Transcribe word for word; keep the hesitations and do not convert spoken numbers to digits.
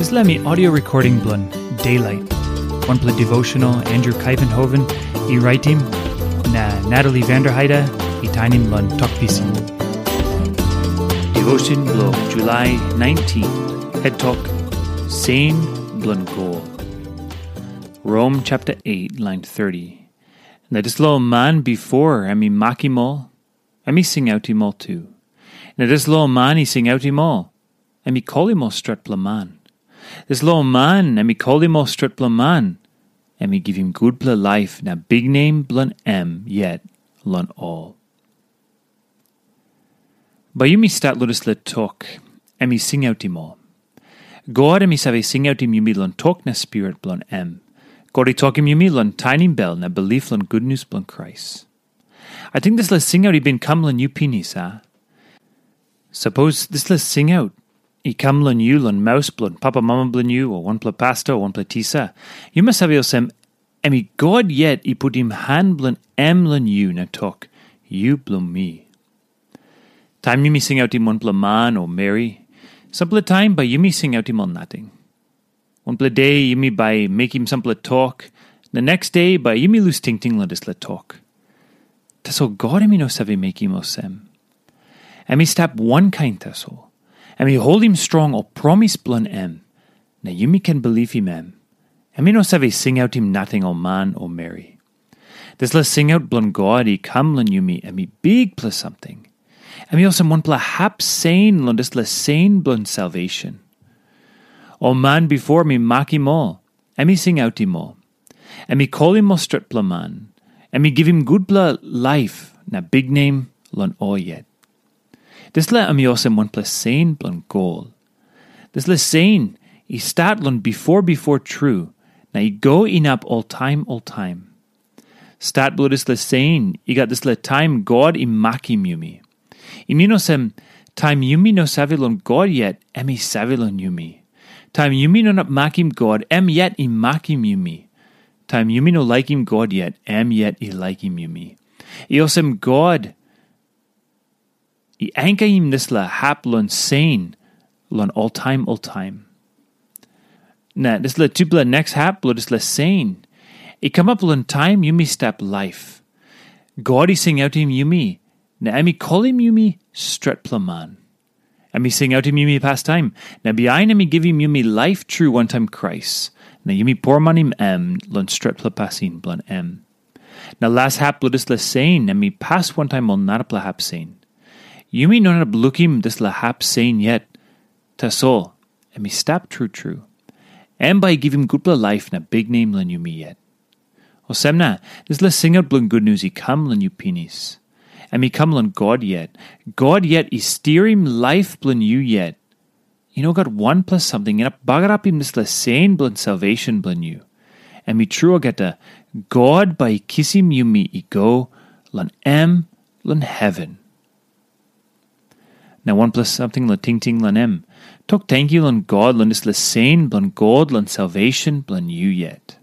Dispela mi audio recording bilong Daylight. Wanpela devotional Andrew Kaivenhoven i raitim, na Natalie Vanderheide i tainim long Tok Pisin. Devotion bilong July nineteen, head tok, Sen bilong God. Rom chapter eight, line thirty. Na dispela man bipo em i makim ol, em i singautim ol tu. Na dispela man i singautim ol, em i kolim ol stretpela man. Dispela man em i kolim ol stretpela man, em i givim gutpela laip na biknem bilong em yet long ol. Bai yumi stat long dispela tok, em i singautim ol. God em i save singautim yumi long tok na spirit bilong em. God i tokim yumi long tainim bel na bilip long gutnius bilong Krais. Ating dispela singaut i bin kam long yu pinis, a? Sapos dispela singaut i kam long yu long maus bilong papamama bilong yu o wanpela pasta o wanpela tisa, yu mas save olsem, em i God yet i putim han bilong em long yu na tok, "Yu bilong mi." Taim yumi singautim wanpela man o meri, sampela taim bai yumi singautim ol nating. Wanpela de yumi bai mekim sampela tok, na neks de bai yumi lus tingting long dispela tok. Tasol God em i no save mekim olsem. Em i stap wankain tasol. Em i holim strong ol promis bilong em, na yumi ken bilipim em. Em i no save singautim nating ol man o meri. Dispela singaut bilong God i kam long yumi, em i bikpela samting. Em i olsem wanpela hap sen long dispela sen bilong salvation. Ol man bipo mi makim ol, em i singautim ol. Em i kolim ol stretpela man. Em i givim gutpela laip na biknem long ol yet. Dispela em i olsem wanpela sen bilong gol. Dispela sen i stat long bipo bipo tru, na i go inap oltaim oltaim. Stat bilong dispela sen i gat dispela taim God i makim yumi. I min olsem, taim yumi no save long God yet, em i save long yumi. Taim yumi no inap makim God, em yet i makim yumi. Taim yumi no laikim God yet, em yet i laikim yumi. I olsem God i ankaim dispela hap long sen long oltaim oltaim. Na dispela tupela neks hap bilong dispela sen i kamap long taim yumi stap laip. God i singautim yumi, na em i kolim yumi stretpela man. Em i singautim yumi pastaim, na bihain em i givim yumi laip tru wantaim Krais, na yumi poromanim em long stretpela pasin bilong em. Na las hap bilong dispela sen em i pas wantaim ol narapela hap sen. Yumi no inap lukim dispela hap sen yet. Tasol, em i stap tru tru. Em bai i givim gutpela laip na biknem long yumi yet. Olsem na, dispela singaut bilong gutnius i kam long yu pinis. Em i kam long God yet. God yet i stirim laip bilong yu yet. I no gat wanpela samting inap bagarapim dispela sen bilong salvation bilong yu. Em i tru olgeta, God bai i kisim yumi i go long em long heven. Na wanpela samting long tingting long em. Tok tenkyu long God long dispela sen bilong God long salvation bilong yu yet.